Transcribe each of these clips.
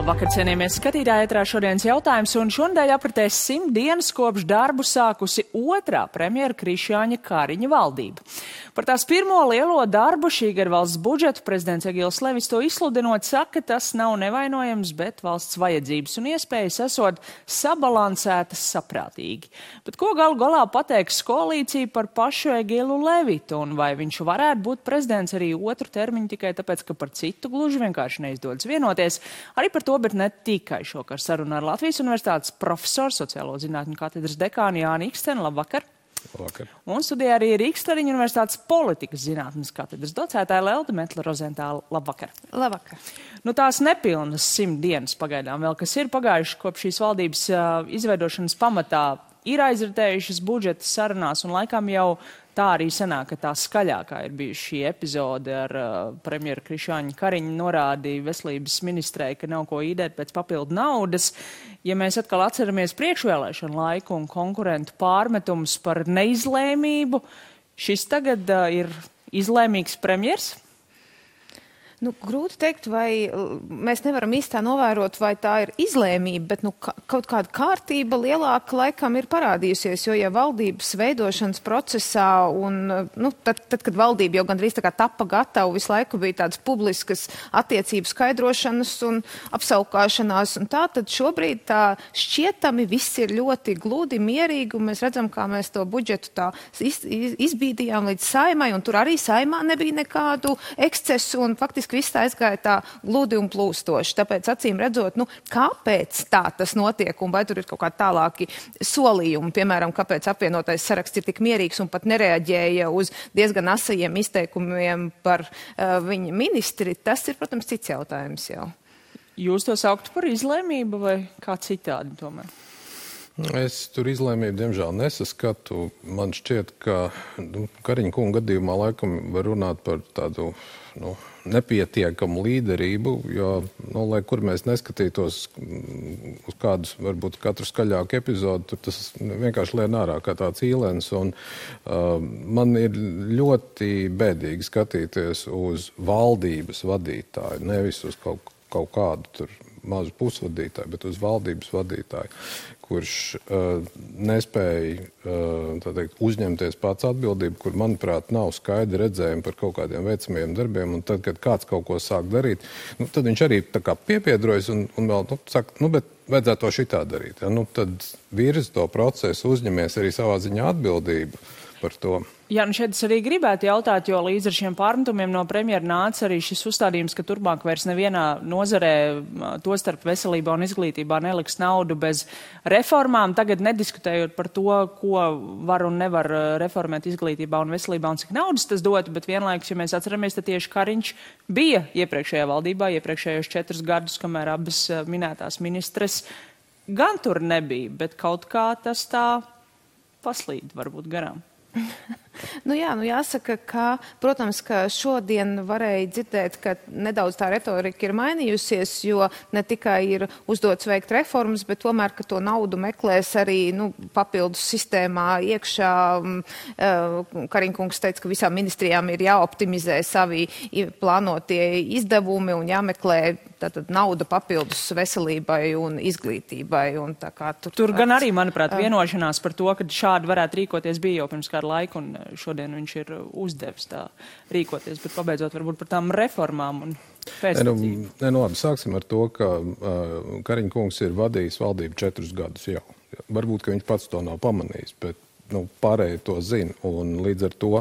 Labvakar, cienījamies skatītāji, ētrā šodienas jautājums, un šonadēļ apritēs 100 dienas kopš darbu sākusi otrā premjera Krišjāņa Kariņa valdība. Par tās pirmo lielo darbu šī gada valsts budžetu prezidents Egils Levis to izsludinot saka, tas nav nevainojams, bet valsts vajadzības un iespējas esot sabalansētas saprātīgi. Bet ko galu galā pateiks koalīcija par pašu Egilu Levitu, un vai viņš varētu būt prezidents arī otru termiņu tikai tāpēc, ka par citu gluži vienkārši neizdodas vienoties? Arī par to, bet ne tikai šokar sarunā ar Latvijas Universitātes profesoru, sociālo zinātņu katedras dekānu Jāni Iksteni. Labvakar! Labvakar! Un studijā arī Rīgas Tradiņu Universitātes politikas zinātnes katedras docētāja Lelde Metle-Rozentāla. Labvakar! Labvakar! Nu, tās nepilnas 100 dienas pagaidām vēl, kas ir pagājuši kopš šīs valdības izveidošanas pamatā, ir aizritējušas budžeta sarunās, un laikam jau tā arī sanāk, ka tā skaļākā ir bijusi šī epizode ar premjeru Krišjāņu Kariņu norādīja veselības ministrei, ka nav ko īdēt pēc papildu naudas. Ja mēs atkal atceramies priekšvēlēšanu laiku un konkurentu pārmetumus par neizlēmību, šis tagad ir izlēmīgs premjers? Nu, grūti teikt, vai mēs nevaram īstā novērot, vai tā ir izlēmība, bet kaut kāda kārtība lielāka laikam ir parādījusies, jo ja valdības veidošanas procesā un tad, kad valdība jau gandrīz tā kā tapa gatava, visu laiku bija tādas publiskas attiecību skaidrošanas un apsaukāšanās un tā, tad šobrīd tā šķietami viss ir ļoti gludi, mierīgi, un mēs redzam, kā mēs to budžetu tā izbīdījām līdz Saeimai, un tur arī Saeimā nebija nekādu ekscesu, un faktiski viss tā aizgāja tā gludi un plūstoši. Tāpēc, acīm redzot, kāpēc tā tas notiek un vai tur ir kaut kā tālāki solījumi, piemēram, kāpēc apvienotais saraksts ir tik mierīgs un pat nereaģēja uz diezgan asajiem izteikumiem par viņa ministri, tas ir, protams, cits jautājums jau. Jūs to sauktu par izlēmību vai kā citādi tomēr? Es tur izlēmību, diemžēl, nesaskatu. Man šķiet, ka Kariņa kunga gadījumā laikam var runāt par tādu nepietiekamu līderību, jo, lai kur mēs neskatītos uz kādus, varbūt katru skaļāku epizodu, tur tas vienkārši lien ārā kā tāds īlens. Un man ir ļoti bēdīgi skatīties uz valdības vadītāju, nevis uz kaut kādu tur mazu pusvadītāju, bet uz valdības vadītāju, kurš nespēja uzņemties pats atbildību, kur, manuprāt, nav skaidri redzējumi par kaut kādiem veicamajiem darbiem, un tad, kad kāds kaut ko sāk darīt, tad viņš arī tā kā piepiedrojas un vēl saka, bet vajadzētu to šitā darīt. Ja? Tad virzi to procesu, uzņemies arī savā ziņā atbildību par to. Jā, šeit es arī gribētu jautāt, jo līdz ar šiem pārmetumiem no premjera nāca arī šis uzstādījums, ka turpmāk vairs nevienā nozarē, tostarp veselībā un izglītībā, neliks naudu bez reformām. Tagad nediskutējot par to, ko var un nevar reformēt izglītībā un veselībā un cik naudas tas dotu, bet vienlaikus, ja mēs atceramies, tad tieši Kariņš bija iepriekšējā valdībā, iepriekšējos 4 gadus, kamēr abas minētās ministres gan tur nebija, bet kaut kā tas tā paslīd varbūt garām. Jāsaka, ka, protams, ka šodien varēja dzirdēt, ka nedaudz tā retorika ir mainījusies, jo ne tikai ir uzdots veikt reformas, bet tomēr, ka to naudu meklēs arī papildus sistēmā iekšā. Kariņkungs teica, ka visām ministrijām ir jāoptimizē savi plānotie izdevumi un jāmeklē tātad nauda papildus veselībai un izglītībai. Un tā kā tur gan arī, manuprāt, vienošanās par to, ka šādi varētu rīkoties bija jau pirms kādu laiku, un šodien viņš ir uzdevis tā rīkoties, bet pabeidzot varbūt par tām reformām un pēctecību. Labi, sāksim ar to, ka Kariņa kungs ir vadījis valdību 4 gadus jau. Varbūt, ka viņš pats to nav pamanījis, bet pārējie to zina, un līdz ar to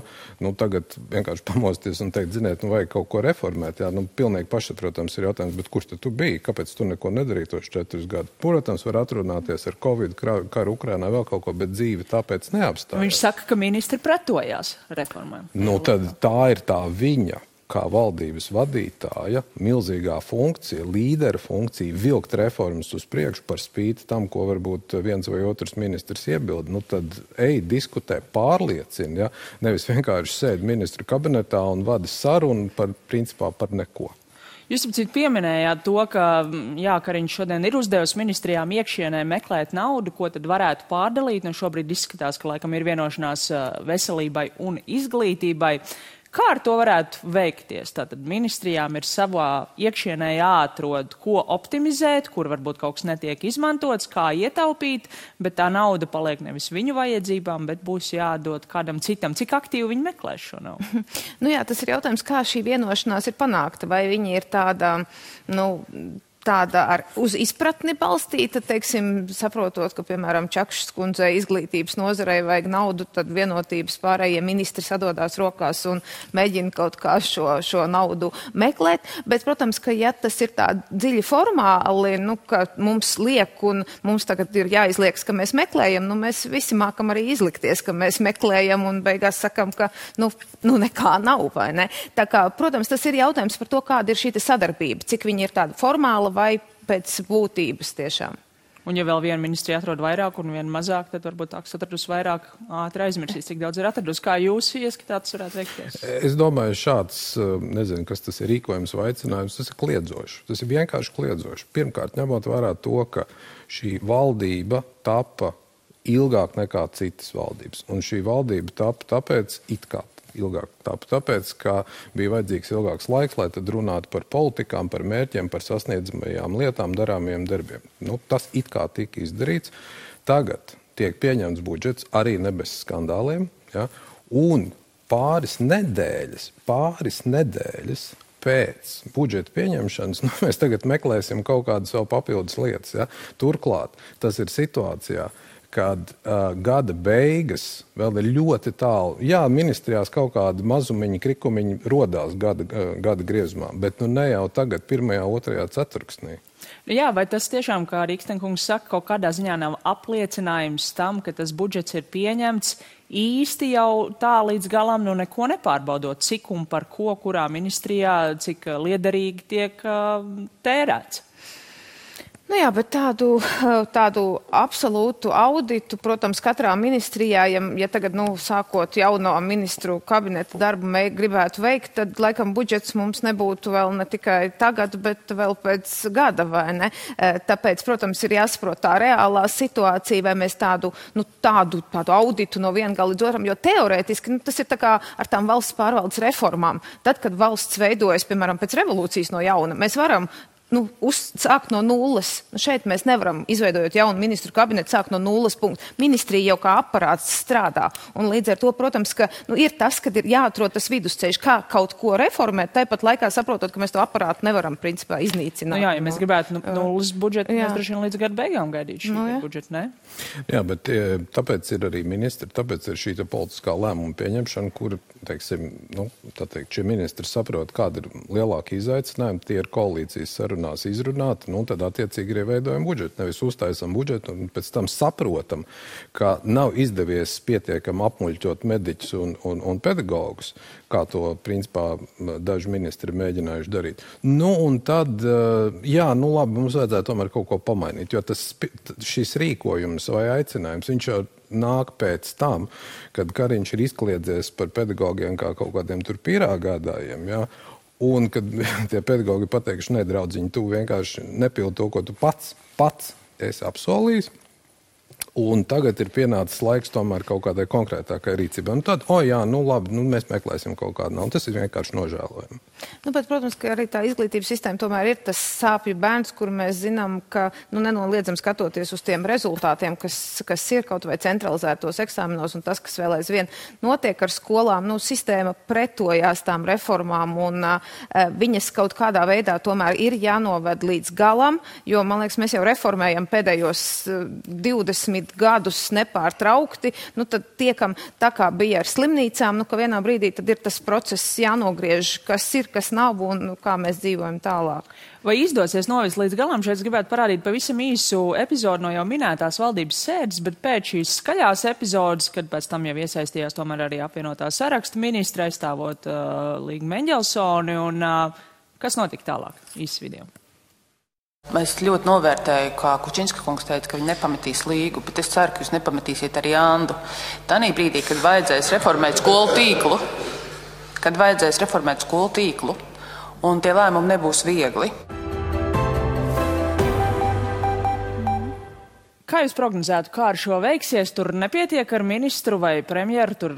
tagad vienkārši pamosties un teikt, ziniet, vajag kaut ko reformēt. Jā, pilnīgi pašsaprotams ir jautājums, bet kurš tad tu biji? Kāpēc tu neko nedarīji tos 4 gadus? Protams, var atrunāties ar Covid, karu Ukrainā, vēl kaut ko, bet dzīve tāpēc neapstājās. Viņš saka, ka ministri pretojās reformām. Tad tā ir tā viņa, kā valdības vadītāja, milzīgā funkcija, līdera funkcija, vilkt reformas uz priekšu par spīti tam, ko varbūt viens vai otrs ministrs iebilda. Tad ej, diskutē, pārliecina, ja? Nevis vienkārši sēd ministru kabinetā un vada sarunu principā par neko. Jūs pieminējāt to, ka Kariņš šodien ir uzdevis ministrijām iekšienē meklēt naudu, ko tad varētu pārdalīt. Šobrīd izskatās, ka laikam ir vienošanās veselībai un izglītībai. Kā ar to varētu veikties? Tātad ministrijām ir savā iekšienē jāatrod, ko optimizēt, kur varbūt kaut kas netiek izmantots, kā ietaupīt, bet tā nauda paliek nevis viņu vajadzībām, bet būs jādod kādam citam. Cik aktīvi viņi meklēs šo naudu? Nu jā, tas ir jautājums, kā šī vienošanās ir panākta. Vai viņi ir tāda, tāda uz izpratni balstīta, teiksim, saprotot, ka, piemēram, Čakšas kundzei izglītības nozarei vajag naudu, tad vienotības pārējie ministri sadodās rokās un mēģina kaut kā šo naudu meklēt. Bet, protams, ka ja tas ir tā dziļi formāli, ka mums liek un mums tagad ir jāizlieks, ka mēs meklējam, mēs visi mākam arī izlikties, ka mēs meklējam un beigās sakam, ka nekā nav, vai ne? Tā kā, protams, tas ir jautājums par to, kāda ir šī sadarbība, cik viņi ir tāda formāla vai pēc būtības tiešām. Un ja vēl viena ministrija atrod vairāk un viena mazāk, tad varbūt tā, kas atradus vairāk, ātri aizmirsīs, cik daudz ir atradus. Kā jūs ieskatāt, tas varētu veikties? Es domāju, šāds, nezinu, kas tas ir rīkojums vai aicinājums, tas ir kliedzoši. Tas ir vienkārši kliedzoši. Pirmkārt, ņemot vērā to, ka šī valdība tapa ilgāk nekā citas valdības. Un šī valdība tapa tāpēc ilgāk. Tāpēc, ka bija vajadzīgs ilgāks laiks, lai tad runātu par politikām, par mērķiem, par sasniedzamajām lietām, darāmajiem darbiem. Tas it kā tika izdarīts. Tagad tiek pieņemts budžets arī ne bez skandāliem, ja? Un pāris nedēļas pēc budžeta pieņemšanas, mēs tagad meklēsim kaut kādas vēl papildus lietas. Ja? Turklāt tas ir situācijā, kad gada beigas vēl ir ļoti tālu. Jā, ministrijās kaut kādi mazumiņi, krikumiņi rodās gada griezumā, bet ne jau tagad, 1., 2. ceturksnī. Jā, vai tas tiešām, kā Rīkstenkungs saka, kaut kādā ziņā nav apliecinājums tam, ka tas budžets ir pieņemts īsti jau tā līdz galam, neko nepārbaudot, cik un par ko, kurā ministrijā, cik liederīgi tiek tērēts? Jā, bet tādu absolūtu auditu, protams, katrā ministrijā, ja tagad, sākot jauno ministru kabineta darbu gribētu veikt, tad, laikam, budžets mums nebūtu vēl ne tikai tagad, bet vēl pēc gada, vai ne? Tāpēc, protams, ir jāsaprot tā reālā situācija, vai mēs tādu auditu no viena gala līdz otram, jo teorētiski, tas ir tā kā ar tām valsts pārvaldes reformām. Tad, kad valsts veidojas, piemēram, pēc revolūcijas no jauna, mēs varam sākt no nulles. Šeit mēs nevaram, izveidojot jaunu ministru kabinetu, sākt no nulles punktu. Ministrija jau kā aparāts strādā. Un līdz ar to, protams, ka ir tas, kad ir jāatrod tas vidusceļš, kā kaut ko reformēt, tāpat laikā saprotot, ka mēs to aparātu nevaram, principā, iznīcināt. Jā, ja mēs gribētu nulles budžetu, mēs droši vien līdz gada beigām gaidīt šī budžeta, ne? Jā, bet tāpēc ir arī ministri, tāpēc ir šī politiskā lēmuma pieņemšana, kur, teiksim, šie ministri saprot, kāda ir lielāka izaicinājuma, tie ir koalīcijas sarunās izrunāt, tad attiecīgi arī veidojam budžetu. Nevis uztaisam budžetu un pēc tam saprotam, ka nav izdevies pietiekami apmuļķot mediķus un pedagogus, kā to, principā, daži ministri mēģinājuši darīt. Un tad, labi, mums vajadzētu tomēr kaut ko pamainīt, jo šis rīkojums vai aicinājums, viņš jau nāk pēc tam, kad Kariņš ir izkliedzies par pedagogiem kā kaut kādiem tur pīrāgādājiem, ja? Un kad tie pedagogi pateikuši, nedraudziņi, tu vienkārši nepildi to, ko tu pats esi apsolījis. Un tagad ir pienācis laiks tomēr kaut kādai konkrētākai rīcībai. Un tad, labi, mēs meklēsim kaut kādu naudu. Tas ir vienkārši nožēlojami. Bet, protams, ka arī tā izglītības sistēma tomēr ir tas sāpju bērns, kur mēs zinām, ka nenoliedzam skatoties uz tiem rezultātiem, kas ir kaut vai centralizētos eksāmenos un tas, kas vēl aizvien notiek ar skolām, sistēma pretojās tām reformām un viņas kaut kādā veidā tomēr ir jānoved līdz galam, jo, man liekas, mēs jau reformējam pēdējos 20 gadus nepārtraukti, tad tiekam tā kā bija ar slimnīcām, ka vienā brīdī tad ir tas process jānogriež, kas ir, kas nav un kā mēs dzīvojam tālāk. Vai izdosies novest līdz galam? Šeit es gribētu parādīt pavisam īsu epizodu no jau minētās valdības sēdes, bet pēc šīs skaļās epizodes, kad pēc tam jau iesaistījās tomēr arī apvienotā saraksta ministra aizstāvot Līgu Meņģelsoni, un kas notika tālāk? Īsts video. Es ļoti novērtēju, kā Kučinska kungs teica, ka viņi nepametīs Līgu, bet es ceru, ka jūs nepametīsiet arī Andu. Tanī brīdī, kad vajadzēs reformēt skolu tīklu, un tie lēmumi nebūs viegli. Kā jūs prognozētu, kā ar šo veiksies? Tur nepietiek ar ministru vai premjeru, tur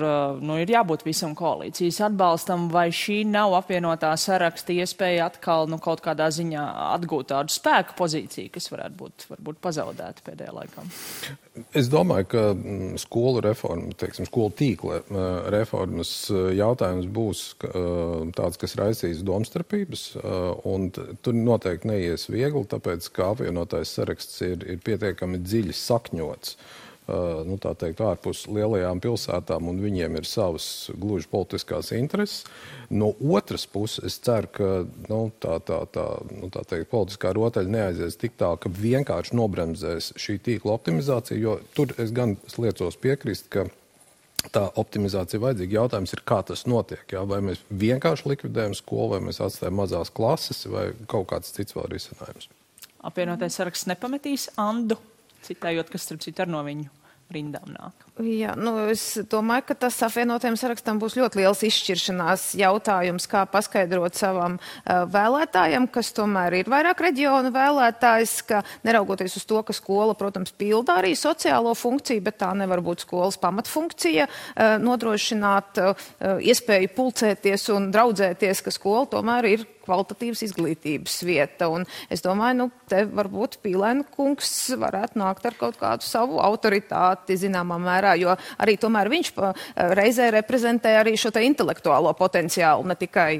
ir jābūt visam koalīcijas atbalstam, vai šī nav apvienotā saraksta iespēja atkal kaut kādā ziņā atgūt tādu spēku pozīciju, kas varētu būt varbūt pazaudēta pēdējā laikā? Es domāju, ka skolu reforma, skolu tīkla reformas jautājums būs tāds, kas raisīs domstarpības, un tur noteikti neies viegli, tāpēc, ka apvienotais saraksts ir pietiekami dziļi sakņots, tā teikt, ārpus lielajām pilsētām, un viņiem ir savas gluži politiskās intereses. No otras puses, es ceru, ka tā teikt, politiskā rotaļa neaizies tik tā, ka vienkārši nobremzēs šī tīkla optimizācija, jo tur es gan liecos piekrist, ka tā optimizācija vajadzīga. Jautājums ir, kā tas notiek. Jā? Vai mēs vienkārši likvidējam skolu, vai mēs atstājam mazās klases, vai kaut kāds cits vēl risinājums. Apvienotais saraksts nepametīs Andu, citējot, kas starp citu ar no viņu rindām nāk. Jā, es domāju, ka tas apvienotajam sarakstam būs ļoti liels izšķiršanās jautājums, kā paskaidrot savam vēlētājam, kas tomēr ir vairāk reģionu vēlētājs, ka neraugoties uz to, ka skola, protams, pilda arī sociālo funkciju, bet tā nevar būt skolas pamatfunkcija, nodrošināt iespēju pulcēties un draudzēties, ka skola tomēr ir kvalitatīvas izglītības vieta. Un es domāju, te varbūt Pīlēna kungs varētu nākt ar kaut kādu savu autoritāti, zināmā mērā, jo arī tomēr viņš reizē reprezentē arī šo te intelektuālo potenciālu, ne tikai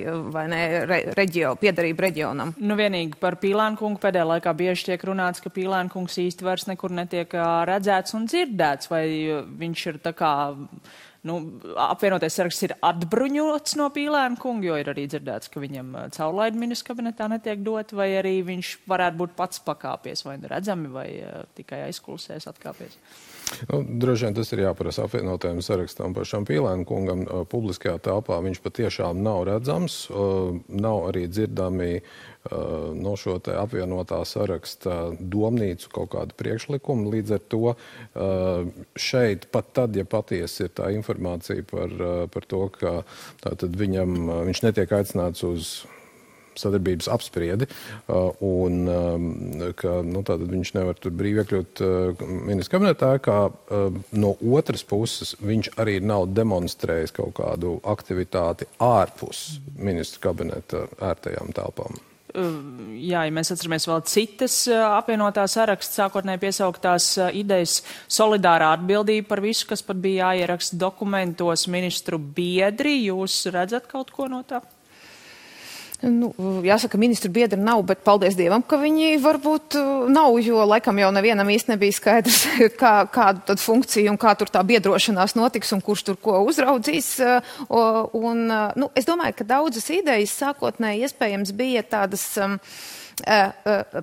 piederību reģionam. Vienīgi par Pīlēna kungu pēdējā laikā bieži tiek runāts, ka Pīlēna kungs īsti vairs nekur netiek redzēts un dzirdēts, vai viņš ir tā kā apvienotais saraksts ir atbruņots no Pīlēna kunga, jo ir arī dzirdēts, ka viņam caurlaidi ministra kabinetā netiek dot, vai arī viņš varētu būt pats pakāpies, vai redzami, vai tikai aizkulisēs atkāpies. Droši vien tas ir jāprasa apvienotajam sarakstam pašam Pīlēna kungam. Publiskajā telpā viņš patiešām nav redzams, nav arī dzirdami no šo te apvienotā saraksta domnīcu kaut kādu priekšlikumu. Līdz ar to šeit pat tad, ja patiesi ir tā informācija par to, ka tātad viņš netiek aicināts uz sadarbības apspriedi, un ka tātad viņš nevar tur brīvi iekļūt ministra kabinetā, kā no otras puses viņš arī nav demonstrējis kaut kādu aktivitāti ārpus ministra kabineta ērtajām telpām. Jā, ja mēs atceramies vēl citas apvienotā saraksta sākotnēji piesauktās idejas, solidārā atbildība par visu, kas pat bija jāieraksta dokumentos, ministru biedri, jūs redzat kaut ko no tā? Jāsaka, ministru biedri nav, bet paldies Dievam, ka viņi varbūt nav, jo laikam jau nevienam īsti nebija skaidrs, kādu tad funkciju un kā tur tā biedrošanās notiks un kurš tur ko uzraudzīs. Es domāju, ka daudzas idejas sākotnēji iespējams bija tādas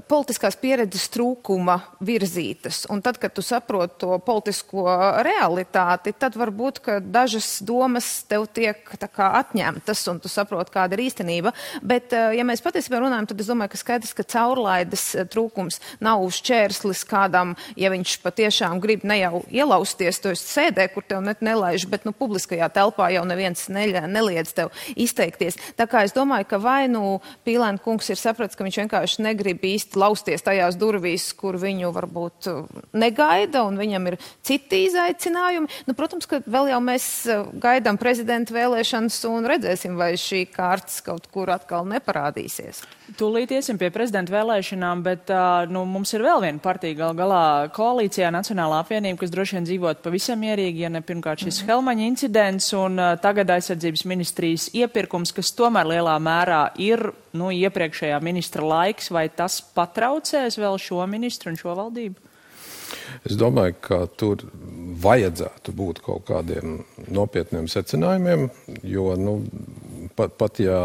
politiskās pieredzes trūkuma virzītas. Un tad, kad tu saproti to politisko realitāti, tad varbūt, ka dažas domas tev tiek tā kā atņemtas un tu saproti, kāda ir īstenība. Bet, ja mēs patiesībā runājam, tad es domāju, ka skaidrs, ka caurlaides trūkums nav šķērslis kādam, ja viņš patiešām grib ne jau ielausties, to sēdē, kur tev nelaiž, bet publiskajā telpā jau neviens neliedz tev izteikties. Tā kā es domāju, ka vai Pīlēna kungs ir sapratis, ka viņš vienkārši negrib īsti lausties tajās durvīs, kur viņu varbūt negaida, un viņam ir citi izaicinājumi. Protams, ka vēl jau mēs gaidām prezidenta vēlēšanas un redzēsim, vai šī kārtas kaut kur atkal neparādīsies. Tūlīt iesim pie prezidenta vēlēšanām, bet mums ir vēl viena partija gal galā koalīcijā Nacionālā apvienība, kas droši vien dzīvot pavisam mierīgi, ja ne pirmkārt šis Helmaņa incidents un tagad aizsardzības ministrijas iepirkums, kas tomēr lielā mērā ir iepriekšējā ministra laiks, vai tas patraucēs vēl šo ministru un šo valdību? Es domāju, ka tur vajadzētu būt kaut kādiem nopietniem secinājumiem, jo pat ja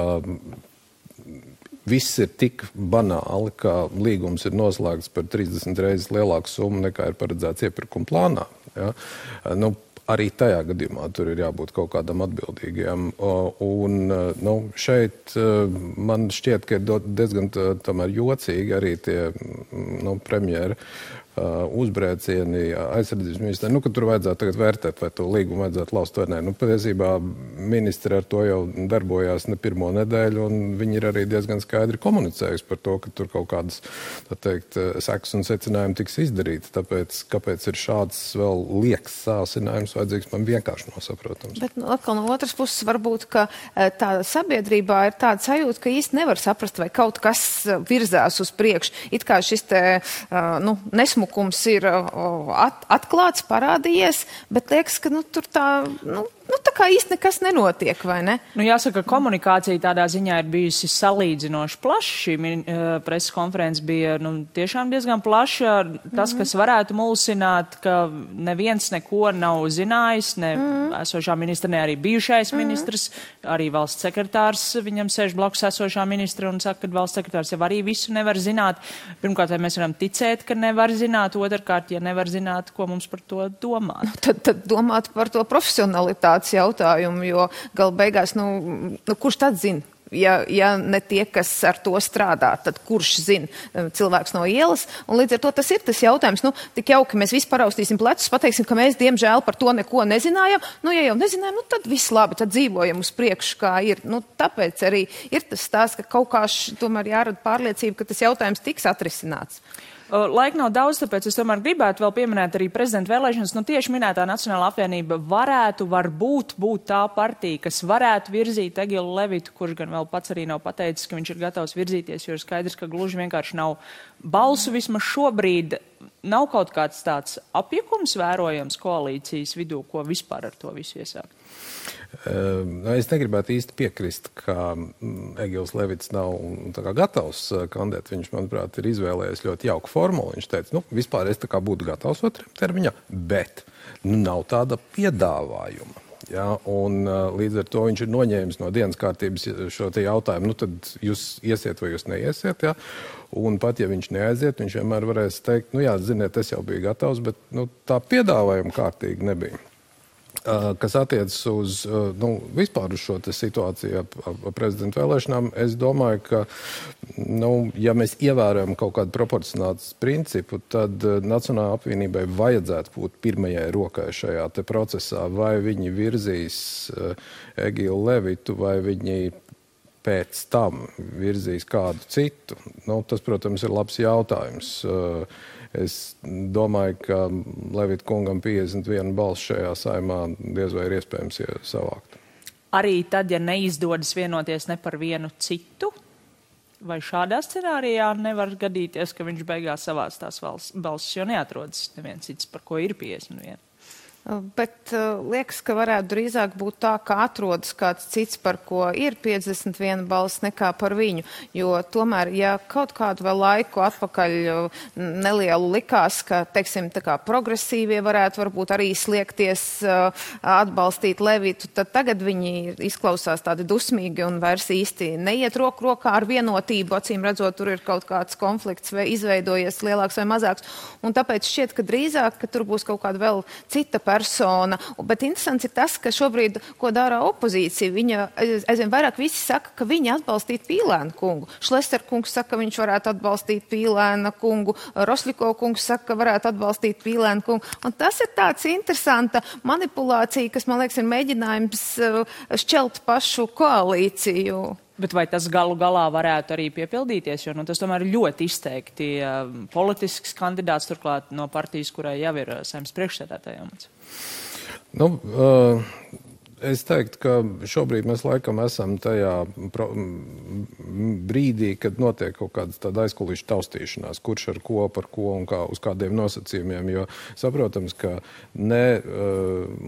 viss ir tik banāli, ka līgums ir noslēgts par 30 reizes lielāku summu nekā ir paredzēts iepirkuma plānā. Ja? Arī tajā gadījumā tur ir jābūt kaut kādam atbildīgiem. Šeit man šķiet, ka ir diezgan tomēr jocīgi arī tie premjera uzbrēcieni aizsardzības ministrē, ka tur vajadzētu tagad vērtēt, vai to līgumu vajadzētu laust vai nē. Patiesībā ministri ar to jau darbojās ne pirmo nedēļu, un viņi ir arī diezgan skaidri komunicējusi par to, ka tur kaut kādas, tā teikt, sekas un secinājumi tiks izdarīti. Tāpēc, kāpēc ir šāds vēl liekas sāsinājums vajadzīgs, man vienkārši nosaprotams. Bet atkal no otras puses varbūt, ka tā sabiedrībā ir tāda sajūta, ka īsti nevar saprast, vai kaut kas virzās uz priekšu. It kā šis te, nesmukums ir atklāts, parādījies, bet liekas, ka tur tā kā īsti nekas nenotiek, vai ne? Jāsaka, komunikācija tādā ziņā ir bijusi salīdzinoši plaša. Šī preses konferences bija tiešām diezgan plaša. Tas, kas varētu mulsināt, ka neviens neko nav zinājis, ne esošā ministra, ne arī bijušais ministrs, arī valsts sekretārs, viņam sēž blakus esošā ministra un saka, ka valsts sekretārs jau arī visu nevar zināt. Pirmkārt, vai mēs varam ticēt, ka nevar zināt, otrkārt, ja nevar zināt, ko mums par to domāt. Tad domāt par to profesionalitātes jautājumu, jo gala beigās, kurš tad zina? Ja ne tie, kas ar to strādā, tad kurš zina cilvēks no ielas? Un līdz ar to tas ir tas jautājums. Tik jauki mēs visi paraustīsim plecus, pateiksim, ka mēs, diemžēl, par to neko nezinājām. Ja jau nezinājām, tad viss labi, tad dzīvojam uz priekšu, kā ir. Tāpēc arī ir tas stāsts, ka kaut kā tomēr jārada pārliecība, ka tas jautājums tiks atrisināts. Laika nav daudz, tāpēc es tomēr gribētu vēl pieminēt arī prezidenta vēlēšanas. Tieši minētā Nacionālā apvienība varbūt būt tā partija, kas varētu virzīt Egilu Levitu, kurš gan vēl pats arī nav pateicis, ka viņš ir gatavs virzīties, jo ir skaidrs, ka gluži vienkārši nav balsu vismaz šobrīd. Nav kaut kāds tāds apjukums vērojams koalīcijas vidū, ko vispār ar to visu iesākt? Es negribētu īsti piekrist, ka Egils Levits nav gatavs kandidēt. Viņš, manuprāt, ir izvēlējies ļoti jauku formulu. Viņš teica, vispār es būtu gatavs otrajam termiņā, bet nav tāda piedāvājuma. Ja, un līdz ar to viņš ir noņēmis no dienas kārtības šo te jautājumu, tad jūs iesiet vai jūs neiesiet, ja? Un pat ja viņš neaiziet, viņš vienmēr varēs teikt, ziniet, es jau biju gatavs, bet tā piedāvājuma kārtīgi nebija. Kas attiecas uz vispār uz šo situāciju ar prezidenta vēlēšanām, es domāju, ka, ja mēs ievērojam kaut kādu proporcionātas principu, tad Nacionālajai apvienībai vajadzētu būt pirmajai rokai šajā te procesā, vai viņi virzīs Egilu Levitu, vai viņi pēc tam virzīs kādu citu. Tas, protams, ir labs jautājums. Es domāju, ka Levita kungam 51 balss šajā saimā diez vai ir iespējams savākt. Arī tad, ja neizdodas vienoties ne par vienu citu, vai šādā scenārijā nevar gadīties, ka viņš beigās savāc tās balsis, jo neatrodas neviens cits, par ko ir 51? Bet liekas, ka varētu drīzāk būt tā, ka atrodas kāds cits, par ko ir 51 balss, nekā par viņu. Jo tomēr, ja kaut kādu vēl laiku atpakaļ nelielu likās, ka, teiksim, tā kā progresīvie varētu varbūt arī sliekties atbalstīt Levitu, tad tagad viņi izklausās tādi dusmīgi un vairs īsti neiet roku rokā ar vienotību. Acīm redzot, tur ir kaut kāds konflikts vai izveidojies lielāks vai mazāks. Un tāpēc šķiet, ka drīzāk, ka tur būs kaut kāda vēl cita persona. Bet interesants ir tas, ka šobrīd, ko dara opozīcija, viņa aizvien vairāk visi saka, ka viņi atbalstītu Pīlēna kungu. Šlester kungs saka, ka viņš varētu atbalstīt Pīlēna kungu. Rosļiko kungs saka, ka varētu atbalstīt Pīlēna kungu. Un tas ir tāds interesanta manipulācija, kas, man liekas, ir mēģinājums šķelt pašu koalīciju. Bet vai tas galu galā varētu arī piepildīties, jo tas tomēr ir ļoti izteikti politisks kandidāts, turklāt no partijas, kurai jau ir Saeimas priekšsēdētāja amats? Es teiktu, ka šobrīd mēs laikam esam tajā brīdī, kad notiek kaut kādas tāda aizkulisku taustīšanās, kurš ar ko, par ko un kā, uz kādiem nosacījumiem, jo saprotams, ka ne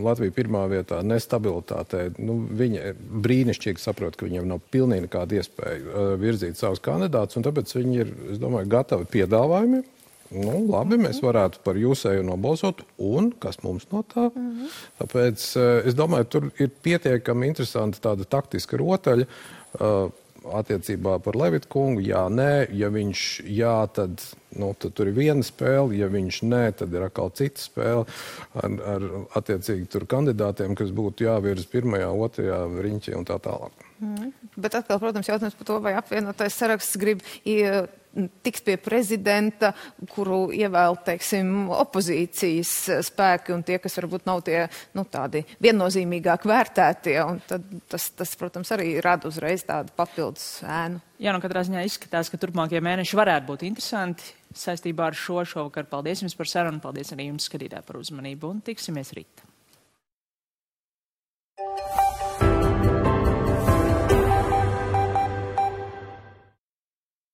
Latvija pirmā vietā, ne stabilitātē, viņa brīnišķīgi saprot, ka viņiem nav pilnīgi nekāda iespēja virzīt savus kandidātus, un tāpēc viņi ir, es domāju, gatavi piedāvājumiem. Labi, mēs varētu par jūsēju nobalsot, un kas mums no tā? Tāpēc es domāju, tur ir pietiekami interesanta tāda taktiska rotaļa attiecībā par Levitu kungu. Jā, nē, ja viņš jā, tad tur ir viena spēle, ja viņš nē, tad ir atkal cita spēle ar attiecīgi tur kandidātiem, kas būtu jāvirz pirmajā, otrajā riņķī un tā tālāk. Bet atkal, protams, jautājums par to, vai apvienotais saraksts grib tiks pie prezidenta, kuru ievēl, teiksim, opozīcijas spēki un tie, kas varbūt nav tie, tādi viennozīmīgāk vērtētie, un tad tas, protams, arī rada uzreiz tādu papildus ēnu. Jā, katrā ziņā izskatās, ka turpmākie mēneši varētu būt interesanti saistībā ar šovakar. Paldies jums par sarunu, paldies arī jums, skatītāji, par uzmanību, un tiksimies rīt.